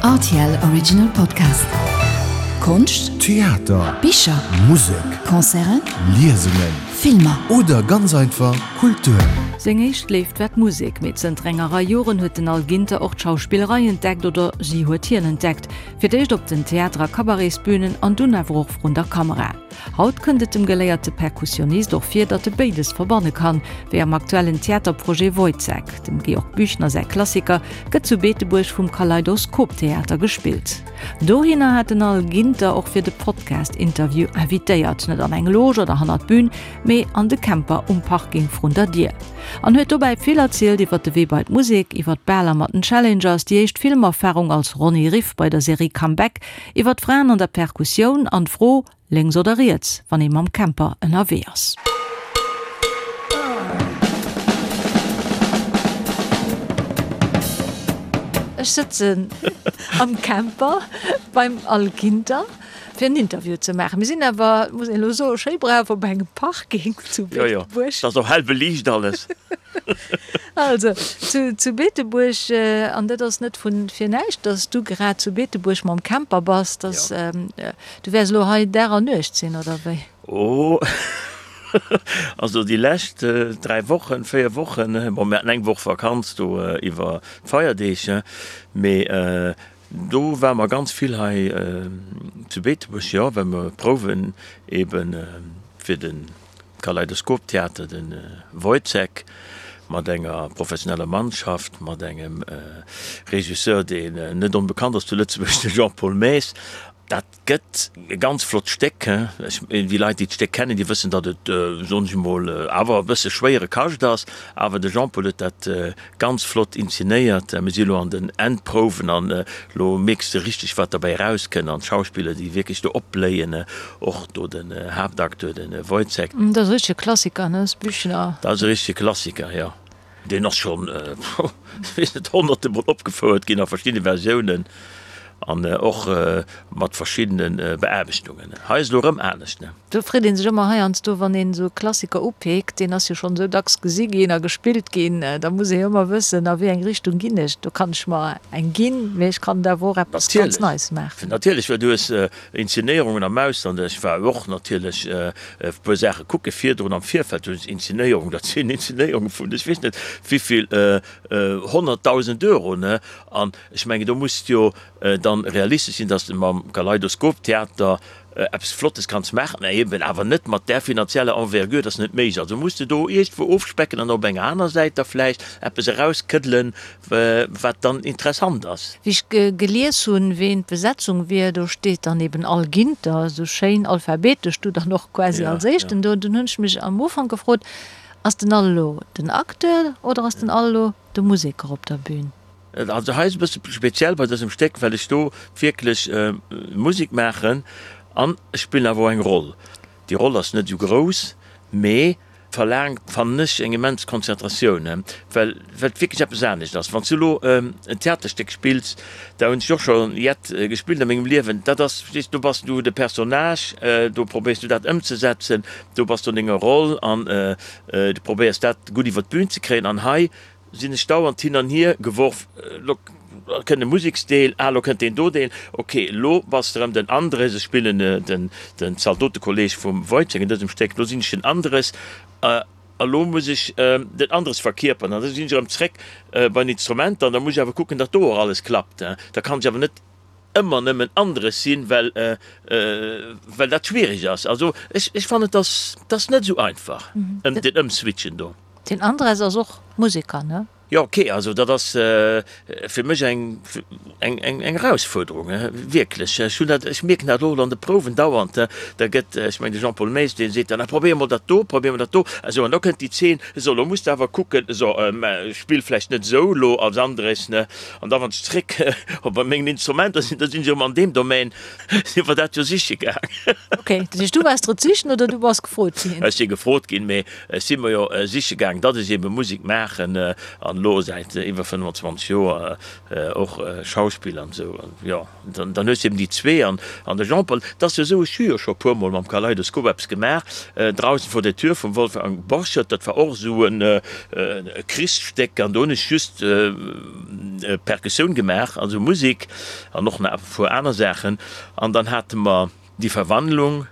Rtl Original Podcast. Konscht, Theater, Bicher, Musek, Concerten, Liesungen, Filmer. Oder ganz einfach Kultur. Seng éischt Léift war d'Musek, mee zënter enger Rei Joren huet den Al Ginter och d'Schauspillerei entdeckt, oder si huet hien entdeckt. Fir d'éischt op den Theater a Cabaretsbünen an dunn awer och vrun der Kamera. Haut kënnt et dem geléierte Perkussionist och vir, datt e béides verbanne kann, wéi am aktuellen Theaterprojet Woyzeck. Dem Georg Büchner säi Klassiker gëtt zu Beetebuerg vum Kaleidoskop Theater gespillt. Dohinner hat den Al Ginter och fir de Podcast-Interview invitéiert, net an eng Loge oder hannert d'Bün, mee an de Camper um Parking vrun der Dier. An huet dobäi vill erzielt iwwer de Wee bei d'Musek, iwwer d'Baler mat den Challengers, déi éischt Filmerfarung als Ronny Riff bei der Serie Comeback, Iwwer d'Fraen an der Perkussioun an d'Fro, lénks oder riets, wann ee mam Camper ënnerwee ass. Ech sëtzen am Camper beim Al Ginter fir en Interview ze maachen. Mir sinn awer, muss een elo soen, schéi brav op engem Parking zu Beetebuerg. Jo, jo, et ass och hell beliicht alles. Also, zu, zu Beetebuerg, an dat ass net vu fir näischt, dass du grad zu Beetebuerg mam Camper bass, dass, Ja. du wäers elo hei Dag an Nuecht sinn, oder wéi? Oh, also déi lescht 3 Wochen, 4 Wochen, bon, mir haten eng Woch Vakanz do iwwer d'Feierdeeg, mee do ware mer ganz vill hei zu Beetebuerg, jo, well mer prouwen eeben fir de Kaleidoskop-Theater, de Woyzeck, mat enger professioneller Mannschaft, mat engem Regisseur, deen net onbekannt ass zu Lëtzebuerg, de Jean-Paul Maes. Dat gëtt e ganz flott Stéck. Déi Leit, déi d'Stéck kennen, déi wëssen, datt et, soen ech emol, awer e bësse schwéiere Kascht ass. Awer de Jean-Paul huet dat ganz flott inzenéiert. Mir si elo an den Endprouwen an elo mierks de richteg, wat derbäi erauskënnt an d'Schauspiller, déi wierklech do opbléien, och do den Haaptacteur, de Woyzeck. Dat ass e richtege Klassiker, ne, Büchner? Dat ass e richtege Klassiker, jo. Deen ass schonn, ech weess net, honnerte mol opgefouert ginn a verschiddene Versiounen an och mat verschiddene Beaarbechtungen. Hei ass elo erëm anescht, ne? Do freet ee sech ëmmer heiansdo, wann een esou e Klassiker upeekt, deen ass jo schonn esou dacks gesi ginn a gespillt ginn, da muss ee jo ëmmer wëssen, a wéi eng Richtung ginn ech. Do kann ech mer eng ginn, mee ech kann et awer och eppes ganz Neies maachen. Natierlech, well du hues Inzenéierungen am Ausland. Ech war och natierlech e puer Saache kucke virdrun am Virfeld. Du hues Inzenéierungen, dat sinn Inzenéierunge vun ech weess net wéivill 100.000 Euro, ne? An ech mengen, do muss de jo dann realistesch sinn, datt s de mam Kaleidoskop-Theater eppes Flottes kanns maachen, mä eben awer net mat där finanzieller Envergure, dat ass net méiglech. Also muss de do iergendwou ofspecken an op enger aner Säit da vläicht eppes erauskëddelen, wat dann interessant ass. Wéi ech gelies hunn, ween d'Besetzung wier, do steet dann eben Al Ginter, esou schéin alphabetesch, du dann och quasi als éischten do. Dunn hunn ech mech am Ufank gefrot, Ass den Al elo den Acteur oder ass den Al elo de Museker op der Bühn? Also hei ass e bësse speziell bei dësem Stéck, well ech do wierklech Musek maachen an ech spillen awer och eng Roll. Déi Roll ass net esou grouss, mee verlaangt, fannen ech, eng immens Konzentratioun, well well et wierklech eppes anescht ass. Wann s du elo en Theaterstéck spills, da hunn ech och scho jett gespillt a mengem Liewen, dat ass, verstees, do bass du de Personnage, do probéiers du dat ëmzesetzen, do bass du an denger Roll an du probéiers dat gutt iwwer d'Bün ze kréien. An hei Sinn ech dauernd hin an hier geworf, lo kënnt e Museksdeel, ah lo kënnt deen do Deel, ok lo bass de rëm den Andres, ech spillen den den Zaldotekolleg vum Woyzeck an dësem Stéck, lo sinn ech den Andres a lo muss ech den Andres verkierperen an da sinn ech erëm zréck bei den Instrumenter an da muss ech awer kucken, datt do och alles klappt, da kann ech awer net ëmmer nëmmen Andres sinn, well well dat schwiereg ass. Also ech ech fannen, et ass et ass net esou einfach ëm den Ëmswitchen do. Den Andres ass och Museker, ne? Jo, ok, also dat ass fir mech eng eng eng Erausfuerderung, wierklech. Ech hunn dat, ech mierken dat och an de Prouwen dauernd, da gëtt, ech mengen de Jean-Paul Maes, dee seet dann, ah probéier mol dat do, probéier mol dat do, esou, an da kënnt déi Zeen, esou, elo muss de awer kucken, esou, mä spill vläicht net esou elo als Andres, ne, an da wann ech zréck op bei mengen Instrumenter sinn, da sinn ech erëm an deem Domaine, si mer dat jo siche gaang. Ok, dat heescht du waars drot sichen oder du bass gefrot ginn? Ech si gefrot ginn, mee Ech si mer jo siche gaang, datt ech ebe Musek maachen. An. an elo säit iwwer 25 Joer och Schauspiller an esou. An jo, dann, dann hues de eben déi zwee an, an de Jean-Paul, et ass jo esou, ech hu jo scho e puermol mam Kaleidoskop eppes gemaach, Draußen vor der Tür vum Wolfgang Borchert, dat war och esou en Krichsstéck an do hunn ech just Perkussioun gemaach, also Musek an och nach e puer aner Saachen. An dann hate mer Die Verwandlung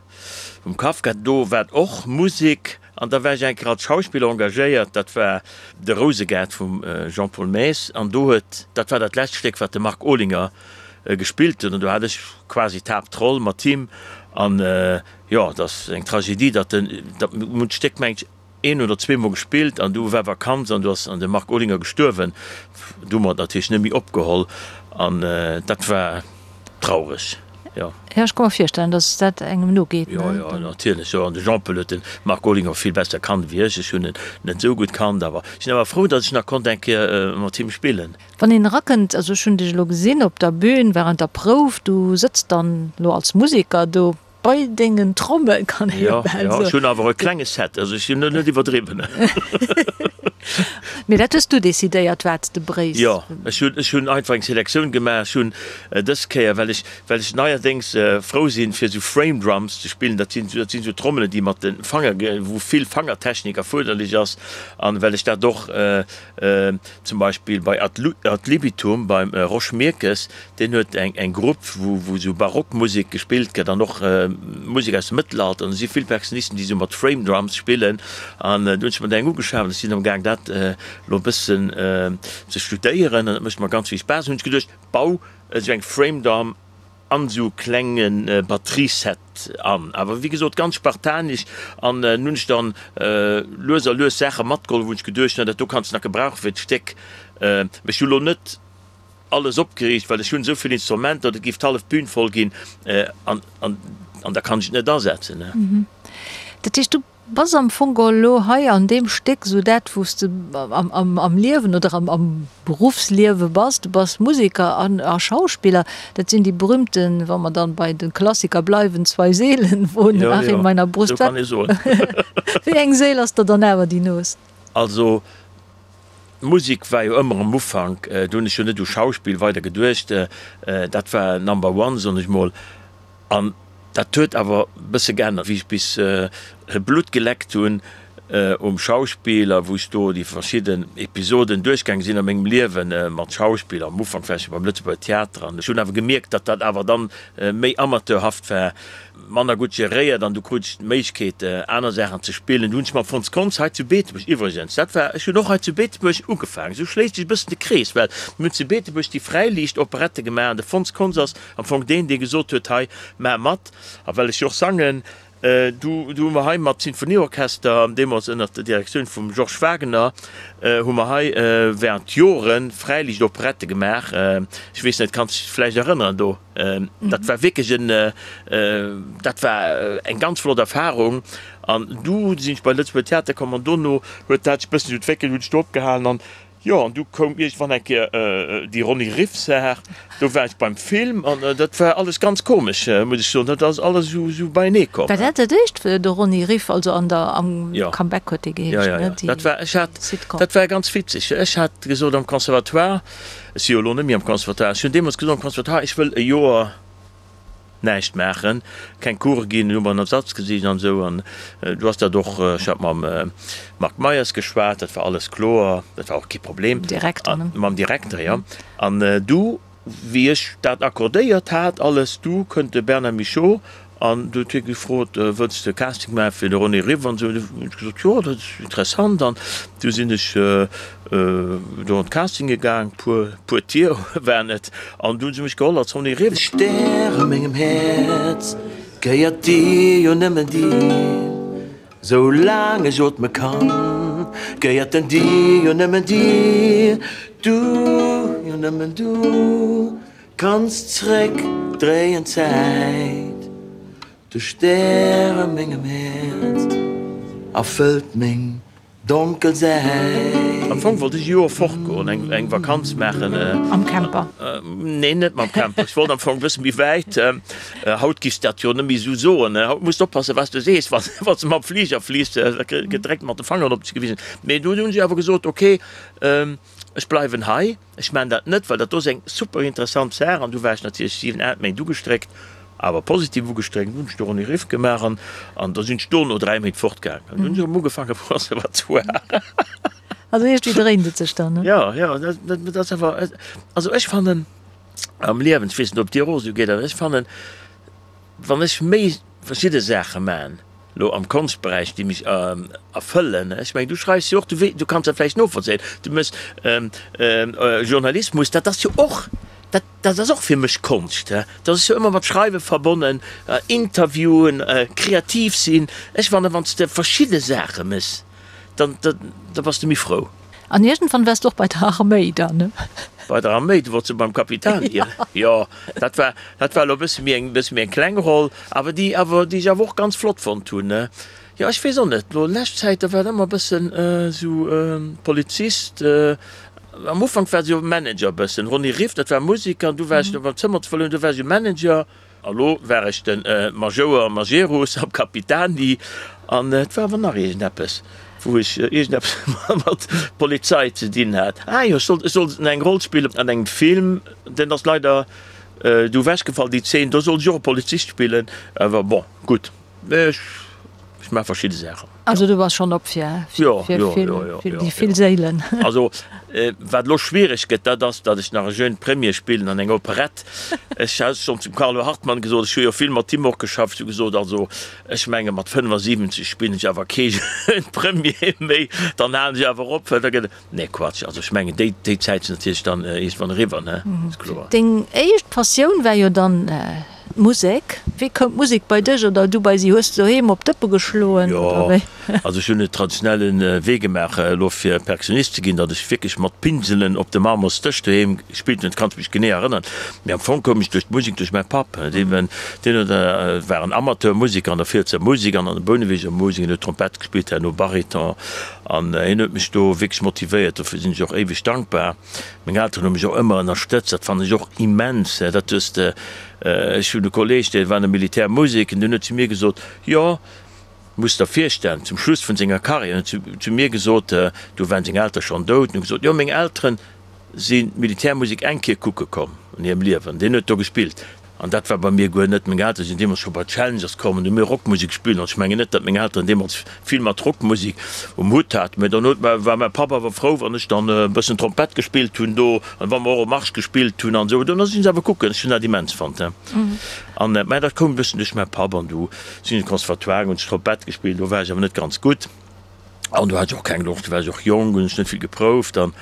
vum Kafka, do war och Musek an da war ech eng Kéier als Schauspiller engagéiert, dat war De Rousegaart vum Jean-Paul Maes an do huet, dat war dat lescht Stéck wat de Marc Olinger gespillt huet an do hat ech quasi d'Haaptroll mat him an jo, et ass eng Tragedie, datt den, datt mir hunn d'Stéck meng ech een oder zweemol gespillt an du war Vakanz an du ass an de Marc Olinger gestuerwen. Du hu mer et natierlech net méi opgeholl an dat war traureg, jo. Jo, ech ka mer virstellen, datt dat engem nogeet, ne? Jo, jo, natierlech, jo. An de Jean-Paul huet de Marc Olinger vill besser kannt wéi ech. Ech hunn en net esou gutt kannt, awer ech sinn awer frou, datt ech nach konnt eng Kéier mat him spillen. Wann een erakënnt, also ech hunn dech elo gesinn op der Bühn wärend der Prouf, du sëtz dann elo als Museker do bei dengen Trommel, kann ee jo bal soen. Jo, ech hunn awer e klenge Set, also ech hunn net iwwerdriwwen. Mee dat hues du decidéiert, wat s de bréichs? Jo, ech hunn, ech hunn einfach eng Selektioun gemaach. Ech hunn dës Kéier, well ech, well ech neierdéngs frou sinn, fir esou Frame Drums ze spillen, dat sinn, dat sinn esou Trommelen, déi mat de Fanger, wou vill Fangertechnik erfuerderlech ass, an well ech dat och Zum Beispill bei Ad Libitum beim Rosch Mirkes, deen huet eng Grupp, wou esou Barockmusek gespillt gëtt an och Musek aus dem Mëttelalter. An do si vill Perkussionisten, déi esou mat Frame Drums spillen. An do hunn ech mer der eng ugeschaf an ech sinn amgaang dat elo e bëssen ze studéieren an dat mécht mer ganz vill Spaass. Hunn ech geduecht, bau esou eng Frame Drum an esou klenge Batterieset an, awer wéi gesot ganz spartanesch an hunn ech dann lues a lues Saache matgeholl, wou ech geduecht hunn, dat do kanns de nach gebrauchen fir d'Stéck. Mee ech hu lo net alles opgeriicht, well ech hunn esou vill Instrumenter, dat géif d'hallef Bühn voll ginn an an da kann ech et net asetzen. Dat heescht, du Bass am Fong geholl elo hei an deem Stéck esou dat, wou s de am Liewen oder am Beruffsliewe bass. Du bass Museker a Schauspiller. Dat sinn déi berühmten, wa mer dann bei de Klassiker bleiwen, zwei Seelen wohnen ach in meiner Brust. Jo, jo, esou kann ee soen. Wéi eng Séil ass der dann awer déi noost? Also, d'Musek war jo ëmmer am Ufank, do hunn ech jo net u Schauspill weider geduecht, dat war Number one, soen ech mol. An dat huet awer e bësse geännert, wéi ech bis Blutt geleckt hunn um Schauspill a wou ech do déi verschidden Episoden duerchgaange sinn a mengem Liewe mat Schauspill, am Ufank war ech jo beim Lëtzebuerger Theater an ech hunn awer gemierkt, datt dat awer dann méi amateurhaft war, manner gutt geréiert an du krut ech d'Méiglechkeet aner Saachen ze spillen. Du hunn ech mam Fons Kontz hei zu Beetebuerg iwwregens, dat war, ech hunn och hei zu Beetebuerg ugefaangen, esou schléisst sech e bëssen de Krees, well mir hunn zu Beetebuerg déi Fräiliicht-Operette gemaach an de Fons Kontz ass Am Fong deen, dee gesot huet, hei, maach mat. A well ech jo och sangen, du, du hu mer hei mat Sinfonieorchester, deemools ënnert der Direktioun vum Georges Wagener, hu mer hei während Jore Fräiliichtoperette gemaach. Ech weess net, kanns dech vläicht erënneren do? Dat war wierklech en, dat war eng ganz flott Erfahrung. An du sinn ech bei Lëtzebuerger Theater komm an dono huet dat sech e bëssen esou entwéckelt, hunn ech do opgehalen an Jo, an du koum iergendwann eng Kéier déi Ronny Riff-Saach. Do war ech beim Film an dat war alles ganz komesch, muss ech soen. Dat ass alles esou beienee komm. War dat dat éischt, de Ronny Riff, also an der, am Comeback huet dee geheescht, ne, déi Dat war, ech hat, Sitcom. Dat war ganz witzeg. Ech hat gesot am Conservatoire, ech si jo elo net méi am Conservatoire, ech hunn deemools gesot am Conservatoire, ech wëll e Joer näischt maachen, keng Course ginn, hu mer en Ersatz gesicht an esou an du ass dat och, ech hat mam Marc Meyers geschwat, dat war alles kloer, dat war och kee Problem. Mam Direkter, ne? Mam Direkter, jo. An du, wéi ech dat accordéiert hat alles, du kënnt de Bernard Michaux an du huet hie gefrot, wëlls de Casting maache fir de René Riff an esou. Du hunn ech gesot, jo, dat ass interessant an du sinn ech Do an d'Castinge gaang, puer puer Tier waren et, an du hunn se mech geholl als Ronny Riff. De Stär a mengem Häerz gehéiert dir, jo nëmmen dir, sou laang ech ootme kann, gehéiert en dir, jo nëmmen dir, du, jo nëmmen du kanns zréck dréien d'Zäit. De Stär a mengem Häerz erfëllt meng Donkel Säit. Am Fong wollt ech e Joer fortgoen, eng Vakanz maachen. Am Camper? Nee, net mam Camper. Ech wollt am Fong e bësse méi wäit. Haut giffs dat jo net méi esou soen. Haut muss de oppassen, wat s de sees, wann s de mam Fliger fliss, da gëtt direkt mat de Fangeren op dech gewisen. Mee dunn hunn si awer gesot, ok. Ech bleiwen hei, ech maan dat net, well dat do ass eng super interessant Saach. An du war ech natierlech 7, 8 Méint ugestréckt, awer positiv ugestréckt. Dunn hunn ech de Ronny Riff gemaach an an da sinn ech do no 3 Méint fortgaangen. An dunn hunn ech erëm ugefaangen am Conservatoire. Also iergendwéi dréint et sech dann, ne? Jo, jo, dat ass awer, also ech fannen am Liewen, ech weess net, ob et dir och esou geet, awer ech fannen, wann ech méi verschidde Saache man, lo am Konschtberäich, déi mech erfëllen, ech mengen, du schreifs jo och, du wee, du kanns dat vläicht novollzéien, du méchs Journalismus, dat ass jo och, dat, dat ass och fir mech Konscht, dat ass jo ëmmer mat Schreiwe verbonnen, Interviewen, kreativ sinn. Ech fannen, wann s de verschidde Saache méchs, dann, da bass de méi frou. An iergendwann waars de och bei der Arméi dann, ne? Bei der Arméi, du wollts jo beim Capitani ginn. Jo, dat war, dat war elo e bësse méi eng, bësse méi eng kleng Roll, awer déi awer, déi ech awer och ganz flott fonnt hunn, ne? Jo, ech weess och net, elo lescht Zäit, da war et ëmmer e bëssen esou Polizist, am Ufank war se jo Manager e bëssen, Ronny Riff, dat war Museker, an du war ech do beim Zëmmer ze verlueren, du war ech jo Manager. A lo war ech de Majouer Majerus am Capitani an et war awer nach iergendeppes, wou ech iergendeppes mat Polizei ze dinn hat. Ah jo, ech sollt, ech sollt eng Roll spillen an engem Film, deen ass leider du ewechgefall, déi Zeen, do sollt ech och e Polizist spillen, awer bon, gutt, ech, ech maache verschidde Saachen. Also du bass schonn op fir déi vill Séilen. Also wat elo schwiereg gëtt, dat ass, datt ech nach e jeune Premier spillen an enger Operett. Ech hat schonn zum Carlo Hartmann gesot, ech hu jo vill mat him och geschafft, ech hu gesot, also ech menge mat 75 spillen ech awer kee jeune Premier méi, dann halen ech awer op, well da gëtt et. Nee Quatsch, also ech mengen déi déi Zäit ass natierlech dann iergendwann eriwwer, ne, ass kloer. Deng éischt Passioun war jo dann d'Musek. Wéi koum d'Musek bei dech oder du bei si? Hues de doheem op d'Dëppe geschloen oder wéi? Jo, also ech hunn e traditionelle Wee gemaach elo fir Perkussionist ze ginn, datt ech wierklech mat Pinselen op de Marmorsdësch doheem gespillt hunn, dat kann ech mech genee erënneren. Mee am Fong koum ech duerch d'Musek duerch mäi Papp, deen deen huet war en Amateurmuseker an der Fielser Musek an an der Bouneweger Musek, en huet Trompett gespillt, herno Bariton. An hien huet mech do wierklech motivéiert, dofir sinn ech och éiweg dankbar. Meng Elteren hu mech och ëmmer ënnerstëtzt, dat fannen ech och immens. Dat hues de, ech hunn e Kolleeg, dee war an der Militärmusek, an deen huet zu mir gesot, jo, muss der virstellen, zum Schluss vun senger Karriär, huet en zu mir gesot, do waren seng Eltere schonn dout, en huet gesot, jo, meng Elteren sinn d'Militärmusek eng Kéier kucke komm an hirem Liewen, deen huet do gespillt. An dat war bei mir guer net. Meng Eltere sinn deemools scho bei Challengers komm an hu mir Rockmusek gespillt. An ech mengen net, datt meng Elteren deemools vill mat Rockmusek um Hutt haten. Mä dann huet mä, war mäi Papp awer frou, wann ech dann e bëssen Trompett gespillt hunn do an wa mer och e Marsch gespillt hunn an esou. Dann sinn se awer kucken. Ech hunn dat immens fonnt. An, mä dat koum e bëssen duerch mäi Papp. An du sinn ech an de Conservatoire, hunn ech Trompett gespillt. Do war ech awer net ganz gutt. An do hat ech och keng Loscht, do war ech och jonk, hunn ech net vill geprouft an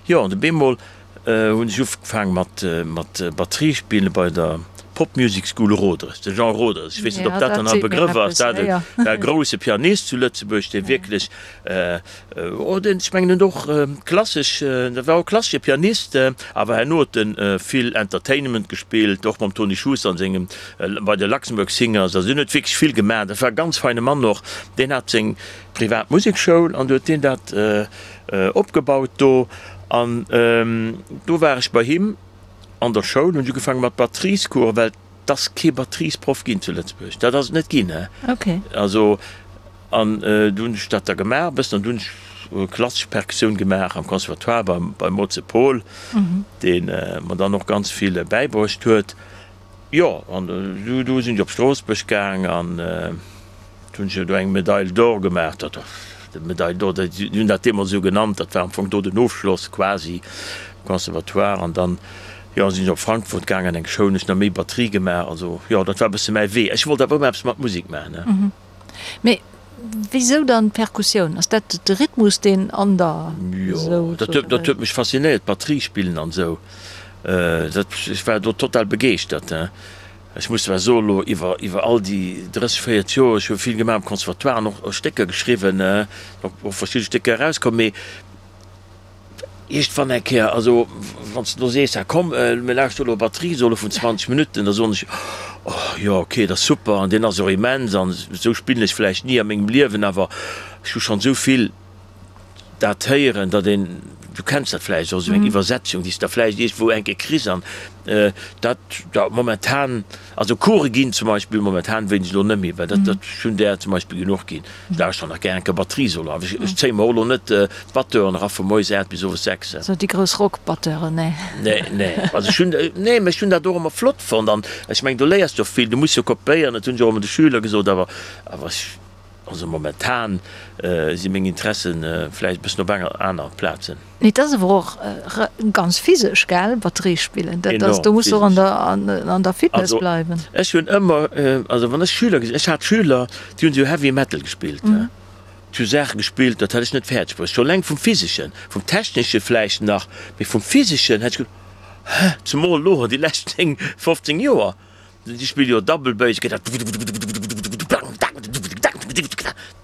jo, an op eemol hunn ech ugefaang mat mat Batterie spillen bei der Pop Music School Roderes, de Jean Roderes, ech weess net, ob dat dann nach e Begrëff ass, dat war e grousse Pianist zu Lëtzebuerg, dee wierklech, oh deen, ech mengen en huet och klassesch, dat war och e klassesche Pianist, awer herno huet en vill Entertainment gespillt, och mam Tony Schuster an sengem, bei de Luxembourg Singers, also deen huet wierklech vill gemaach, dat war e ganz feine Mann och, deen hat seng privat Musekschoul an du huet deen dat opgebaut do an do war ech bei him an der Schoul, hunn ech ugefaange mat Batteriescoursen, well et ass kee Batteriesproff ginn zu Lëtzebuerg, dat ass et net ginn, he. Also an du hunn ech dat da gemaach e bëssen an du hunn ech klassesch Perkussioun gemaach am Conservatoire beim beim Moze Paul, dee mer dann och ganz vill bäibruecht huet. Jo, an du du sinn ech op Stroossbuerg gaang an du hunn ech jo do eng Medaille d'or gemaach. Dat de Medaille d'or, déi hunn dat deemools esou genannt, dat war am Fong do den Ofschloss quasi um Conservatoire. An dann, jo, sinn ech op Frankfurt gaang an eng Schoul, hunn ech nach méi Batterie gemaach. Also jo, dat war e bësse mäi Wee. Ech wollt awer ëmmer eppes mat Musek maachen, ne. Mee wisou dann d'Perkussioun? Ass dat de Rhythmus, deen an der esou. Jo, dat huet, dat huet mech faszinéiert, Batterie spillen an esou. Dat, ech war do total begeeschtert. Ech muss zwar soen, elo iwwer, iwwer all déi 30, 40 Joer, ech hu vill gemaach am Conservatoire an och Stécker geschriwwen, och verschidde Stécker erauskomm, mee iergendwann eng Kéier, also wann s de elo sees, ah komm, mir lauschteren elo e Batteriesolo vun 20 Minutten, da soen ech, oh jo, okay, dat ass super an deen ass och immens an esou spillen ech vläicht ni a mengem Liewen, awer ech hu schonn esou vill dat héieren, datt een. Du kenns dat vläicht och, esou eng Iwwersetzung, déi s de da vläicht iergendwou eng Kéier kriss an dat da momentan, also Course ginn zum Beispill momentan wéinst elo net méi, well dat, dat, ech hunn där zum Beispill genuch ginn. Ech lauschteren nach gär eng Kéier Batteriesolo, awer ech, ech zéie mer och elo net d'Batteuren era vu moies 8 bis owes 6. Sou déi grouss Rockbatteuren, nee. Nee, nee, also ech hunn, nee, mä ech hunn dat och ëmmer flott fonnt an ech mengen, do léiers de och vill, du muss jo kopéieren, dat hunn ech och ëmmer de Schüler gesot, awer, awer ech. Also momentan si meng Interessen vläicht e bëssen op enger aner Plazen. Mee et ass awer och ganz physesch, gell, Batterie spillen? Dat ass, do muss de och an der, an der Fitness bleiwen. Also ech hunn ëmmer, also wann ech Schüler gesinn, ech hat Schüler, déi hunn esou Heavy Metal gespillt, déi hu Saache gespillt, dat hätt ech net fäerdeg bruecht. Scho eleng vum Physeschen, vum Technesche vläicht nach, mee vum Physeschen hätt ech gesot, hä, zemol elo déi lescht 10, 15 Joer. Déi spille jo Double Bass, geet dat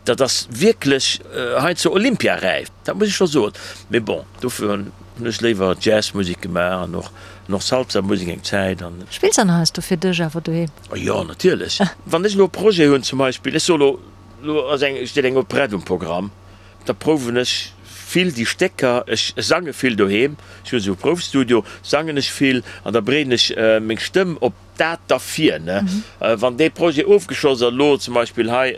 Dat ass wierklech heiansdo olympiaräif, dat muss ech scho soen. Mee bon, dofir hunn ech léiwer Jazzmusek gemaach an och och Salsa-Musek eng Zäit an. Spills an heiansdo fir dech awer doheem? Jo, natierlech. Wann ech elo e Projet hunn, zum Beispill, ech soe lo, elo ass eng, steet eng Operett um Programm, Da prouwen ech vill déi Stécker. Ech sange vill doheem, ech hunn esou e Proufstudio, sangen ech vill an da bereeden ech meng Stëmm op dat da vir. Wann dee Projet ofgeschloss ass, elo zum Beispill hei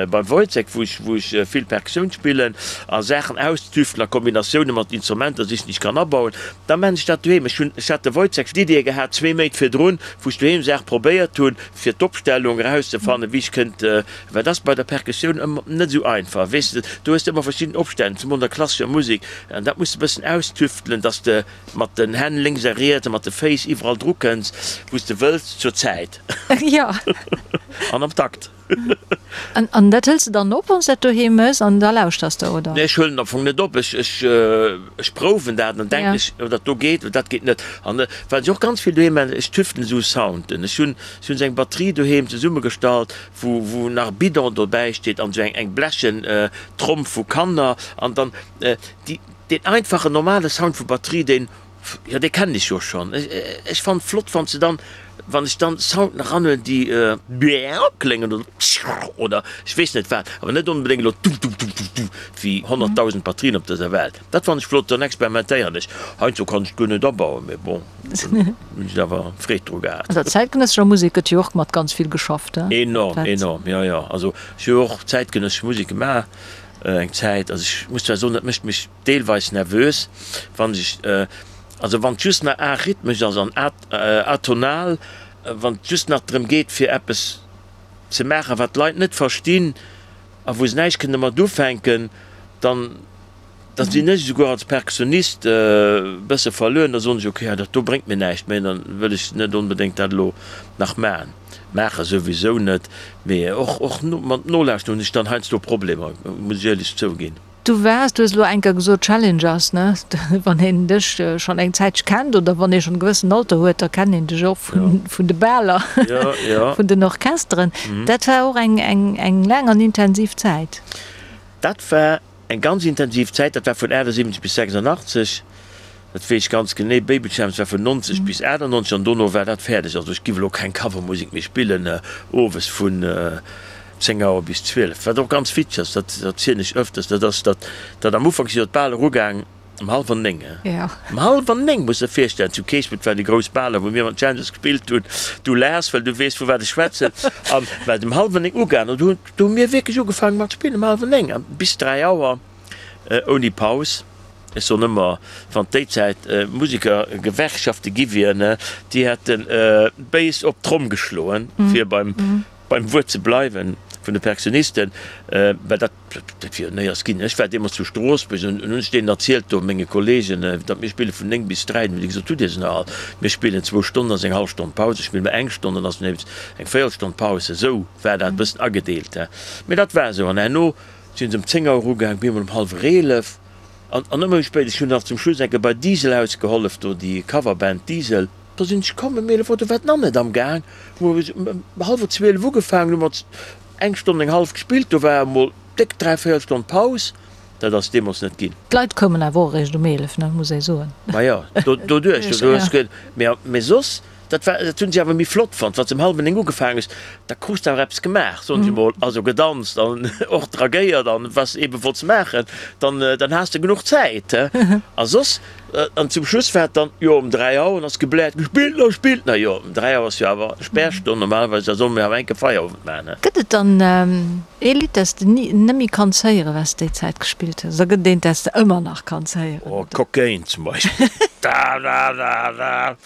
beim Woyzeck, wou ech wou ech vill Perkussioun spillen a Saachen austüftelen a Kombinatioune mat Instrumenter sichen, déi ech kann abauen, da maan ech dat doheem. Ech hunn, ech hat de Woyzeck d'Idee gehat zwee Méint virdrun, wou ech doheem Saache probéiert hunn, fir d'Opstellung erauszefannen, wéi ech kënnt Well dat ass bei der Perkussioun ëmmer net esou einfach, weess de, do hues de ëmmer verschidden Opstänn, zemol an der klassescher Musek, an dat muss de e bëssen austüftelen, dass de mat den Hänn lénks a riets a mat de Féiss iwwerall dru kënns, wou s de wëlls, zur Zäit an am Takt. An dat hëls de dann op, wann s de dat doheem méchs, an da lauschters de, oder? Nee, ech huelen am Fong net op, ech, ech, ech prouwen dat an dann denken ech, oh dat do geet oder dat geet net. An wat ech och ganz vill doheem maachen, ech tüftelen esou Sounden. Ech hunn, ech hunn esou eng Batterie doheem zesummegestallt, wou wou nach e Bidon dobäi steet an esou eng eng blechen Tromm vu Kanner an dann déi deen einfachen normale Sound vu Batterie deen jo dee kennen ech jo schonn. Ech ech fannen et flott wann se dann wann ech dann Sounden eranhuelen déi kléngen oder oder ech weess net wat, awer net onbedéngt elo du-du-du-du-du wéi 100.000 Batterien op dëser Welt. Dat fannen ech flott, dann experimentéieren ech. Heiansdo kann ech et guer net abauen, mee bon, dann hunn ech awer Freed dru gehat. An der zäitgenëssescher Musek gëtt jo och mat ganz vill geschafft, he? Enorm, enorm, jo, jo. Also ech hu jo och zäitgenëssesch Musek gemaach eng Zäit. Also ech muss zwar soen, dat mécht mech deelweis nervös, wann ech, also wann et just nach arrhythmesch ass an atonal, wann et just nach drëm geet fir eppes ze maachen, wat d'Leit net verstinn a wou se näischt kënne mat ufänken, dann. Da sinn ech esouguer als Perkussionist e bësse verluer. Da soen ech, ok, dat do bréngt mir näischt méi, dann wëll ech net onbedéngt dat elo nach maachen. Maache souwisou net, mee och och mat Nolauschteren hunn ech dann heiansdo Problemer, muss ech éierlech zouginn. Du waars, du hues elo eng Kéier gesot, Challengers, ne? Wann een dech schonn eng Zäitche kennt oder wann ee schonn e gewëssen Alter huet, da kennt een dech och vun de Baler, vun den Orchesteren. Dat war och eng eng laang an intensiv Zäit. Dat war Eng ganz intensiv Zäit, dat war vun 78 bis 86, dat weess ech ganz genee. Baby Champs war vun 90 bis 98 an dono war dat fäerdeg. Also ech giff elo keng Covermusek méi spillen owes vun 10 Auer bis 12. Wat och ganz witzeg ass, dat erzielen ech öfters, dat ass, datt dat am Ufank si jo d'Bal erugaang um hallwer 9. Um hallwer 9, muss der virstellen, zu Keespelt waren déi grouss Baler, wou mir mat Champs gespillt hunn. Du laachs, well du weess vu wat ech schwätzen. An war et um hallwer 9 ugaang an do hunn Do hu mir wierklech ugefaangen mat spillen um hallwer 9 an bis 3 Auer ouni Paus. Ech soen ëmmer, wann déi Zäit Musekergewerkschafte gi wieren, déi hätte béis op d'Tromm geschloen, fir beim Wuert ze bleiwen vun de Perkussionisten, well dat dat wier néiers ginn. Ech war deemools zu Stroossbuerg an hunn ech deenen erzielt do, menge Kollegen, datt mir spille vun 9 bis 3. Hunn déi gesot, Hutt Dir se nach all? Mir spillen zwou Stonnen, ass eng hallef Stonn Paus, da spille mer eng Stonn, dann ass nees eng Véierelstonn Paus. Esou war dat e bëssen agedeelt, he. Mee dat war esou. An herno sinn se um 10 Auer ugaang, bemol um hallwer 11 an an ëmmer méi spéit. Ech hunn nach zum Schluss eng Kéier bei Diesel ausgehollef, do déi Coverband Diesel. Da sinn ech komm ëm 11 Auer, do war d'Nann net am Gaang. Hu mer ëm hallwer 12 ugefaangen, hu mer eng Stonn, eng hallef gespillt, do war emol déck dräivéierel Stonn Paus. Dat ass deemools net ginn. D'Leit koumen awer och eréischt um 11, ne, muss ee soen. Ma jo, doduerch, do hues ge, mee, mee soss. Dat war, dat hunn si awer méi flott fonnt, wann s de um hallwer 9 ugefaangen hues, da krus de awer eppes gemaach, soen ech emol, also gedanzt an och dragéiert an wat s de ebe wollts maachen, dann, dann has de genuch Zäit, he. A soss, an zum Schluss war et dann, jo, um 3 Auer ass gebläert, Spillt nach, spillt nach! Jo, um 3 Auer ass jo awer Spärstonn normalerweis, da solle mir awer enke Feierowend maachen, he. Gëtt et dann ee Lidd, dat s de ni, net méi kanns héieren, wat s de déi Zäit gespillt hues, oder gëtt et eent, dat s de ëmmer nach kanns héieren? Oh, Cocaine zum Beispill, da da da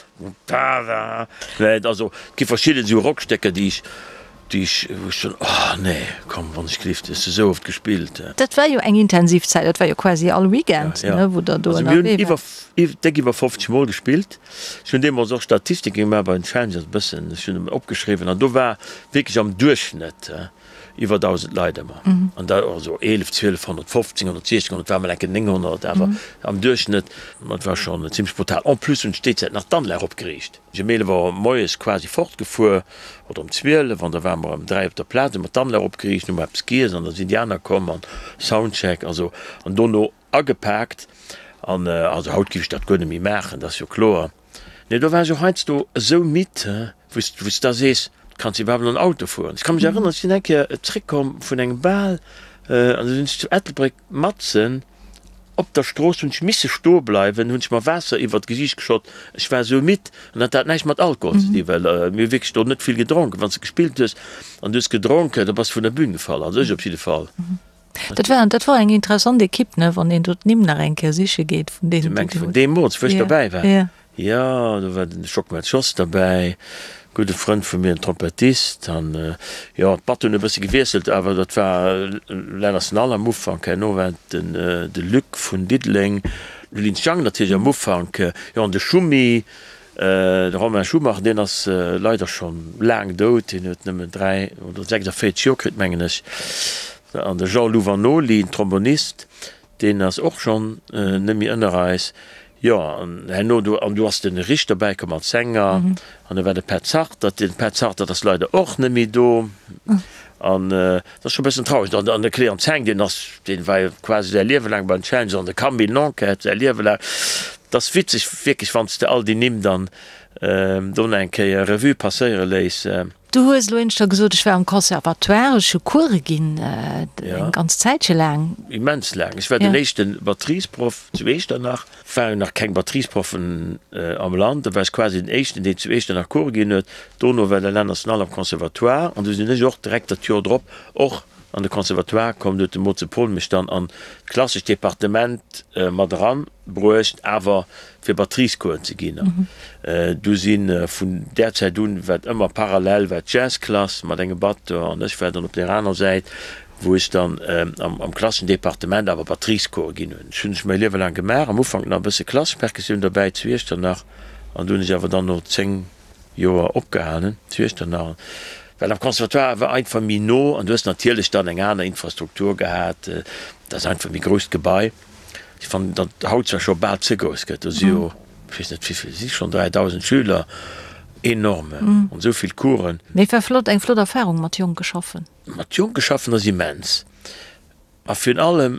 da. Nee, also et gi verschidden esou Rockstécker, déi ech, déi ech, wou ech soen, oh nee, komm, wann ech gelift, hues de esou oft gespillt. Dat war jo eng intensiv Zäit, dat war jo quasi all Weekend, ne, wou der do ënnerwee waart. Also mir hunn iwwer, déck iwwer 50 Mol gespillt. Ech hunn deemools och Statistike gemaach bei den Challengers e bëssen, ech hunn opgeschriwwen an do war wierklech am Duerchschnëtt, Iwwer 1.000 Leit ëmmer. An da also 11, 12, 115, 160, et war mol enke 900, awer am Duerchschnëtt, ma et war schonn zimmlech brutal. En plus hunn ech déi Zäit nach d'Anlag opgeriicht. Ech um 11 Auer moies quasi fortgefuer, oder um 12, an da ware mer ëm 3 op der Plaz, hu mer d'Anlag opgeriicht, hu mer eppes giess an da sinn déi aner komm an Soundcheck, also an dono agepaakt. An also haut géif ech dat guer net méi maachen, dat ass jo kloer. Nee, do war ech och heiansdo esou midd, wou s, wou s da sees, kanns de iwwerhaapt nach en Auto fueren? Ech ka mech erënneren, ech sinn eng Kéier zréckkomm vun engem Bal an du sinn ech zu Ettelbréck matzen op der Strooss, hunn ech misse stoe bleiwen, hunn ech mer Waasser iwwert d'Gesiicht geschott, ech war esou midd. An dat hat näischt mat Alkohol ze dinn, well mir hu wierklech do net vill gedronken. Wann s de gespillt hues an du hues gedronken, da bass de vun der Bün gefall, also ech op jidde Fall. Dat war, dat war eng interessant Ekipp, ne, wann een do d'Nimm nach eng Kéier siche geet vun deenen, déi do. Du mengs vun deemools, wou ech dobäi war? Ja. Jo, do war den Schockmel Jos derbäi, gudde Frënd vu mir, en Trompettist. An jo, d'Batt hunn e bësse gewiesselt, awer dat war Lenners Nall am Ufank. Herno war et den de Luc vun Diddeleng, de Lins Jang natierlech am Ufank, jo, an de Schummi. De Romain Schumacher, deen ass leider scho laang dout, deen huet nëmmen 3 oder 46 Joer kritt, mengen ech. An de Jean-Lou Vanoli, en Trombonist, deen ass och schonn net méi ënner eis. Jo, an herno do, an du ass de Rich derbäi komm als Sänger, an da war de Pet Sarter. De Pet Sarter ass leider och net méi do. An dat ass scho e bëssen traureg. An an de Cléant Zeng, deen ass, deen war jo quasi säi Liewe laang beim Challenger, an de Camille Nanquette säi Liewe laang. Dat ass witzeg wierklech, wann s de all déi Nimm dann do nach eng Kéier Revue passéiere léiss. Du hues elo éineschter gesot, ech war am Conservatoire, ech hu Coure ginn, eng ganz Zäitche laang. Immens laang. Ech war den éischte Batteriesproff zu Echternach. Waren nach keng Batteriesproffen am Land, da war ech quasi den éischten, deen zu Echternach Coure ginn huet. Dono war de Alain National am Conservatoire an du sinn ech och direkt dat Joer drop och an de Conservatoire komm. Du huet de Moze Paul mech dann an d'klassescht Departement mat eran bruecht, awer fir Batteriescoursen ze ginn. An du si vun där Zäit un, wat ëmmer parallel war d'Jazzklass mat engem Batteur an ech war dann op där aner Säit, wou ech dann am klasseschen Departement awer Batteriescoure ginn hunn. Ech hunn ech mäi Liewe laang gemaach, am Ufank nach e bësse klassesch Perkussioun derbäi zu Iechternach an du hunn ech awer dann no 10 Joer opgehalen zu Iechternach, well am Conservatoire war einfach méi no an du hues natierlech dann eng aner Infrastruktur gehat, dat ass einfach e méi grousst Gebai. Ech fannen, datt haut zwar scho bal ze grouss gëtt, do si jo, ech weess net wéivill, si schonn 3.000 Schüler, enorme, an esou vill Coursen. Mee et war flott, eng flott Erfarung mat Jonke schaffen. Mat Jonke schaffen ass immens a virun allem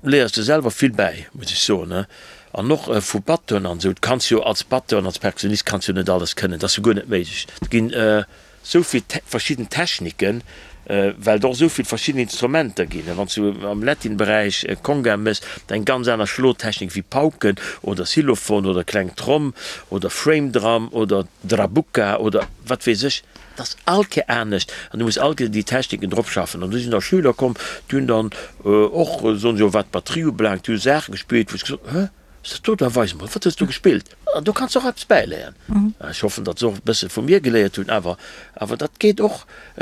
léiers de selwer vill bäi, muss ech soen. An och vu Batteuren an esou. Du kanns jo als Batteur an als Perkussionist kanns jo net alles kënnen, dat ass jo guer net méiglech. Et ginn esou vill verschidden Techniken, well et och esou vill verschidden Instrumenter ginn. Wann s du am Latin-Beräich Conga méchs, dat eng ganz aner Schlotechnik wéi Pauken oder Xylophon oder kleng Tromm oder Frame Drum oder Drabuka oder wat weess ech. Dat ass all Kéier anescht an du muss all Kéier déi Techniken drop schaffen. An du sinn da Schüler komm, déi hunn dann och, soen se jo, wat d'Batterie ubelaangt, déi hu Saache gespillt, wou ech gesot hunn, Hä, ass dat do? Da weis emol, wat hues du gespillt? An do kanns de och eppes bäiléieren. Ech hoffen, datt se och e bësse vu mir geléiert hunn, awer, awer dat geet och,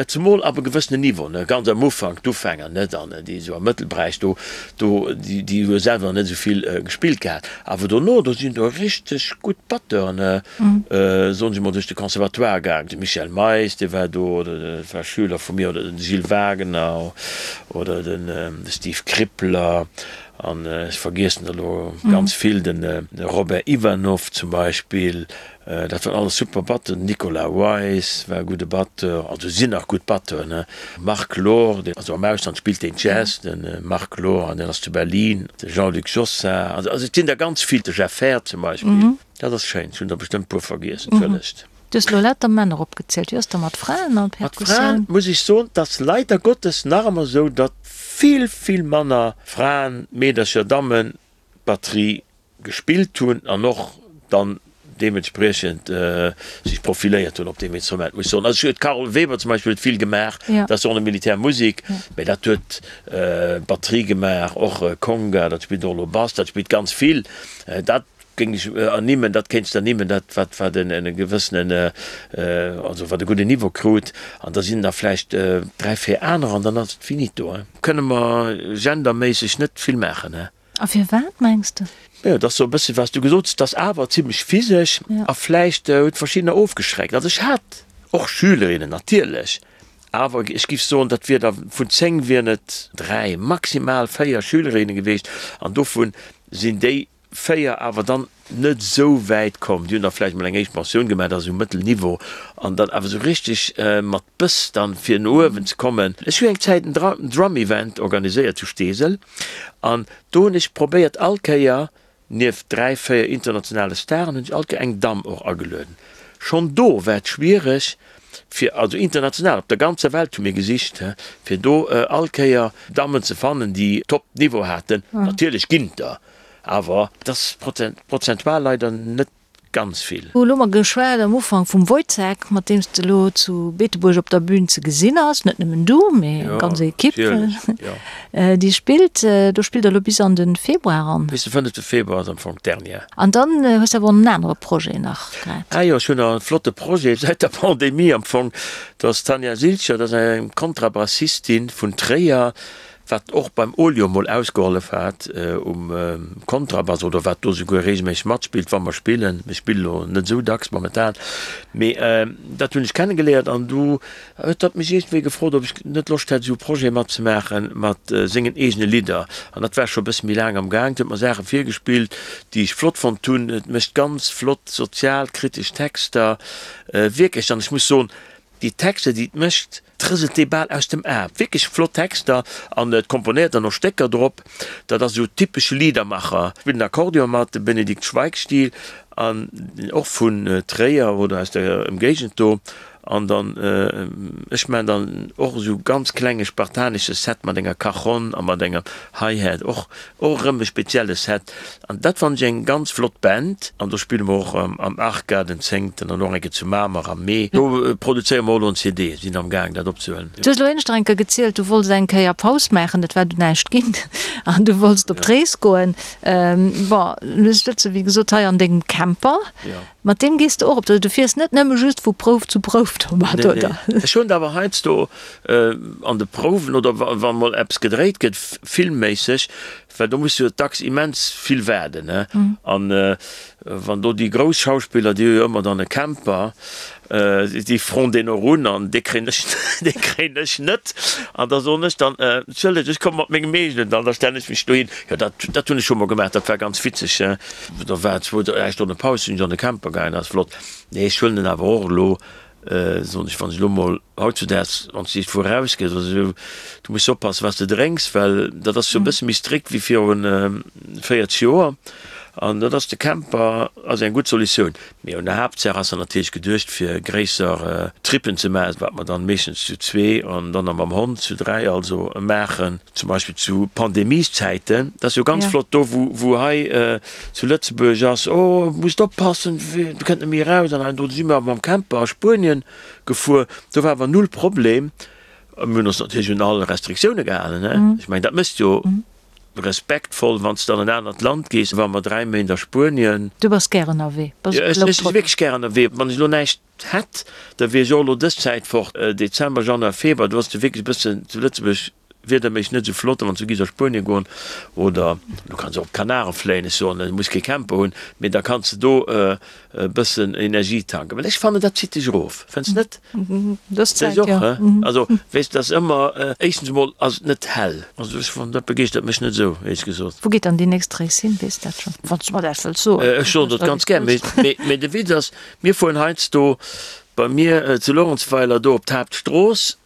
zemol ab e gewëssenen Niveau, ne, ganz am Ufank, d'Ufänger net, an déi esou am Mëttelberäich do, do, déi, déi hu selwer nach net esou vill gespillt gehat. Awer dono, do sinn do richteg gutt Batteuren, Soen ech emol, duerch de Conservatoire gaang. De Michel Meis, dee war do, oder dat war Schüler vu mir, oder den Gilles Wagener oder den Steve Krippler an ech vergiessen der elo ganz vill, de Robert Ivanov zum Beispill, dat waren alles super Batteuren. Den Nicolas Weis war e gudde Batteur, also sinn nach gutt Batteuren, ne. Marc Lohr, deen, also am Ausland spillt deen Jazz, de Marc Lohr, an deen ass zu Berlin, de Jean-Luc Jossart, also et sinn der ganz vill, de Jeff Herr zum Beispill. Dat ass schéin, ech hunn der bestëmmt puer vergiess, entschëllegt. Du hues elo lauter Männer opgezielt. Wéi ass da mat Fraen an Mat Fraen Perkussioun? muss ech soen, 't ass leider Gottes nach ëmmer esou, datt vill, vill manner Fraen, Meedercher, Dammen Batterie gespillt hunn an och dann deementspriechend sech profiléiert hunn op deem Instrument, muss ech soen. Also ech huet d'Carole Weber zum Beispill huet vill gemaach, dat ass och Militärmusek, mä dat huet Batterie gemaach, och Conga, dat spillt och elo Bass, dat spillt ganz vill. Dat géing ech ernimmen, dat kéints de ernimmen, dat wat wat en e gewëssenen, also wat e gudden Niveau krut. An da sinn der vläicht 3, 4 anerer an dann ass et finito. Kënne mer genderméisseg net vill maachen, he? A firwat mengs de? Jo, et ass sou e bësse wat s du gesot hues, et ass awer zimlech physesch a vläicht huet verschiddener ofgeschreckt. Also ech hat och Schülerinnen natierlech, awer ech giff soen, dat wier der vun 10 wieren et 3, maximal 4 Schülerinne geweecht an dovun sinn déi 4 awer dann net esou wäit komm. Déi hunn da vläicht mol eng éischt Pensioun gemaach, dat ass esou mëttel Niveau, an dann awer esou richteg mat Bëss dann fir no uewen ze kommen. Ech hu eng Zäit en Drum Event organiséiert zu Steesel an do hunn ech probéiert all Kéier, nieft 3, 4 internationale Staren, hunn ech all Kéier eng Damm och agelueden. Schonn do war et schwiereg fir, also international, op der ganzer Welt hu mir gesicht, fir do all Kéier Dammen ze fannen, déi Top Niveau haten. Natierlech ginn et der, Awer et ass prozentual leider net ganz vill. Elo hu mer geschwat am Ufank vum Woyzeck, mat deem s de elo zu Beetebuerg op der Bühn ze gesinn ass. Net nëmmen du, mee eng ganz Ekipp, déi spillt. Do spillt der elo bis an de Februar eran. Bis de fënnefte Februar ass am Fong d'Dernière. An dann hues de awer och en anere Projet nach grad. Ah jo, ech hunn nach e flotte Projet säit der Pandemie am Fong. Dat ass d'Tanja Silcher, dat ass eng Kontrabassistin vun Tréier, wat och beim Olio mol ausgehollef hat um Kontrabass oder wat do souguer regelméisseg matspillt, wa mer spillen. Mir spille lo net esou dacks momentan, mee dat hunn ech kennegeléiert an du huet hatt mech iergendwéi gefrot, ob ech net Loscht hätt, esou e Projet matzemaache mat sengen eegene Lidder. An dat war scho e bësse méi laang am Gaang. Huet mer Saache virgespillt, déi ech flott fonnt hunn. Et mécht ganz flott sozialkritesch Texter, wierklech. An ech muss soen, Déi Texter, déi et mécht, trëselt dee bal aus dem Aarm. Wierklech flott Texter an et komponéiert dann och Stécker drop. Dat ass esou typesch Liedermacher. Spillt den Akkordeon mat, de Benedikt Schweig-Stil an och vun Tréier oder aus der Ëmgéigend do. An dann, ech maachen dann och esou ganz klenge spartanesche Set mat enger Cajonne a mat engem Hi-Hat, och och erëm e spezielle Set. An dat fannen ech eng ganz flott Band. An do spille mer och am Arca den zéngten an och eng Kéier zu Mamer am Mee. Do produzéiere mer och elo en CD, sinn am gaang dat opzehuelen. Du hues elo éineschter eng Kéier gezielt, du wollts eng Kéier Paus maachen, et war du näischt ginn an du wollts op d'Rees goen. Bon, elo sëtze wéi gesot hei an dengem Camper. Mat deem gees de och op d'Rees? Du fiers net nëmme just vu Prouf zu Prouf domat, oder? Nee, nee. Ech hunn et awer heiansdo an de Prouwen oder wa mol eppes gedréit gëtt, filmméisseg, well do muss jo dacks immens vill waarden, ne? An wann do déi grouss Schauspiller, déi hu jo ëmmer dann e Camper, déi froen deen och un an dee kréien ech, dee kréien ech net. An da soen ech dann, Entschëllegt, ech komme mat mengem eegenen dann, da stellen ech mech dohin. Jo, dat, dat hunn ech scho mol gemaach, dat war ganz witzeg. Da war zwou, dräi Stonne Paus, sinn ech an de Camper gaangen, dat ass flott. Nee, ech huelen en awer och elo, soen ech, wann ech elo mol hautzudaags, wann s de iergendwou erausgees oder esou, du muss oppassen, wat s de drénks, well dat ass jo e bësse méi strikt wéi viru 40 Joer. An dat ass, de Camper ass eng gutt Solutioun. Mee un der Haaptsaach ass en natierlech geduecht, fir gréisser Trippen ze maachen, wat mer dann meeschtens zu zwee an dann nach mam Hond zu dräi also maachen. Zum Beispill zu Pandemieszäiten, dat ass jo ganz flott do, wou wou hei zu Lëtzebuerg ass, oh musst oppassen, du kënnt net méi eraus an do si mer mam Camper a Spuenien gefuer, do war awer null Problem. Mir hunn ons natierlech un all Restriktioune gehalen, ne? Ech mengen, dat méchs jo respektvoll, wann s de an en anert Land gees. War mer 3 Méint a Spuenien. Du bass gär ënnerwee, bass e Ech si wierklech gär ënnerwee. Wann ech elo näischt hätt, da wier ech och elo dës Zäit fort, Dezember, Januar, Februar, do ass et jo wierklech e bëssen zu Lëtzebuerg wiederméisseg net esou flott, a wann s du giss a Spuenien goen oder du kanns och op d'Kanaren fléien, ech soen, du muss kee Camper hunn, mee da kanns de do e bëssen Energie tanken, well ech fannen, dat zitt dech erof, fënns net? Dës Zäit, jo. Also, weess, dat ass ëmmer, éischtens emol ass et net hell, also ech fannen, dat begeeschtert mech net esou, éierlech gesot. Wou geet dann déi nächst Rees hin, weess dat schonn, wann s du mer dat wëlls soen? Ech soen dat ganz gär, mee, mee de Witz ass, Mir fueren heiansdo bei mir zu Lorentzweiler do op d'Haaptstrooss.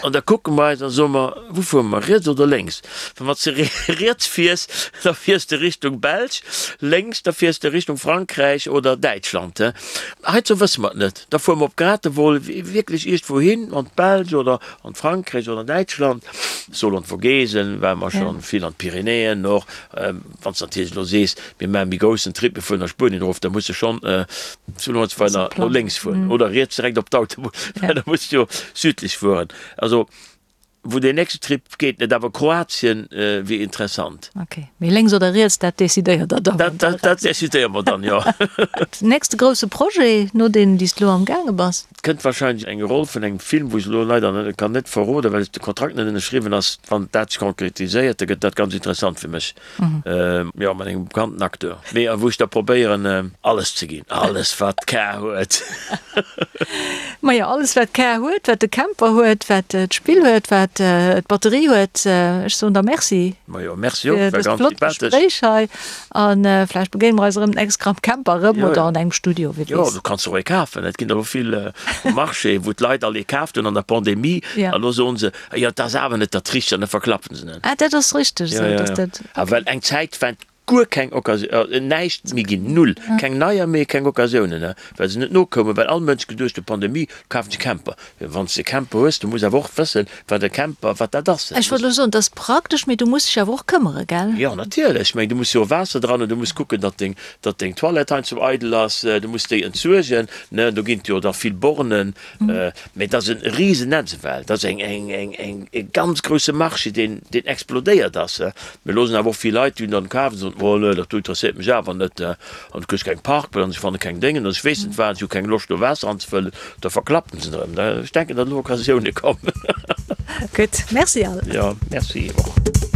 An da kucke mer eis an soe mer, Wou fuere mer, riets oder lénks? Well wann s de riets fiers, da fiers de Richtung Belsch, lénks, da fiers de Richtung Frankräich oder Däitschland. Heizou wësse mer et net. Da fuere mer op Gratevol, wierklech iergendwou hin, an d'Belsch oder an d'Frankräich oder an Däitschland. Soll an d'Vogesen ware mer schonn, vill an d'Pyrenäen och. Wann s de natierlech elo sees, mir maache méi groussen Trip, mir fueren a Spuenien erof, da muss de schonn zu Luerenzweiler no lénks fueren oder riets direkt op d'Autobunn, well da muss de jo südlech fueren. Also wou deen nächste Trip geet net, awer Kroatien wier interessant. Ok, mee lénks oder riets, dat decidéiert der dann. Dat dat decidéiere mer dann, jo. Nächste grousse Projet, no deenen, déi s de elo am gaange bass? Et kënnt wahrscheinlech eng Roll vun engem Film, wou ech elo leider net kann net verroden, well de Kontrakt net ënnerschriwwen ass. Wann dat sech konkretiséiert, da gëtt dat ganz interessant fir mech, jo, mat engem bekannten Acteur, mee a wou ech da probéieren alles ze ginn, alles wat d'Kar huet. Majo, alles wat d'Kar huet, wat de Camper huet, wat d'Spill huet, wat d'Batterie huet. Ech soen der Merci. Majo, Merci och, war ganz sympathesch. Fir dëst flott Gespréich hei. A vläicht begéine mer eis erëm d'nächst Kéier am Camper erëm oder an engem Studio, wie weess. Jo, du kanns och ee kafen. Et ginn der elo vill um Marché, wou d'Leit all ee kaaft hunn an der Pandemie. A lo soen se, Jo, dat ass awer net dat Richtegt an da verklappen se en. Ah, dat ass richteg esou, dass dat. A well eng Zäit war guer keng Occasion, näischt méi ginn, null, keng neier méi, keng Occasiounen, well se net nokoumen, well all Mënsch geduecht huet, Pandemie, kafen ech e Camper. Wann s de e Camper hues, du muss awer och wëssen, wat e Camper, wat dat ass. Ech wollt elo soen, et ass praktesch, mee du muss dech awer och këmmere, gell? Jo, natierlech. Ech mengen, du muss jo Waasser dran hunn, du muss kucken, datt deng, datt deng Toilette heiansdo eidel ass, du muss déi entsuergen, ne? Do ginn et jo da vill Bornen. Mee et ass e Risennetz ewell. Et ass eng, eng, eng, eng, e ganz grousse Marché, deen, deen explodéiert ass. Mir loossen awer och vill Leit, déi hunn dann kaf an soen, Oh nee, dat do interesséiert mech awer net. An du kriss keng Parkplaz an ech fanne keng Déngen an ech weess net wat, ech hu keng Loscht do Waasser anzefëllen, da verklappen se erëm. Ech denken, datt elo Occasioune kommen. Gutt, Merci Al. Jo, Merci och.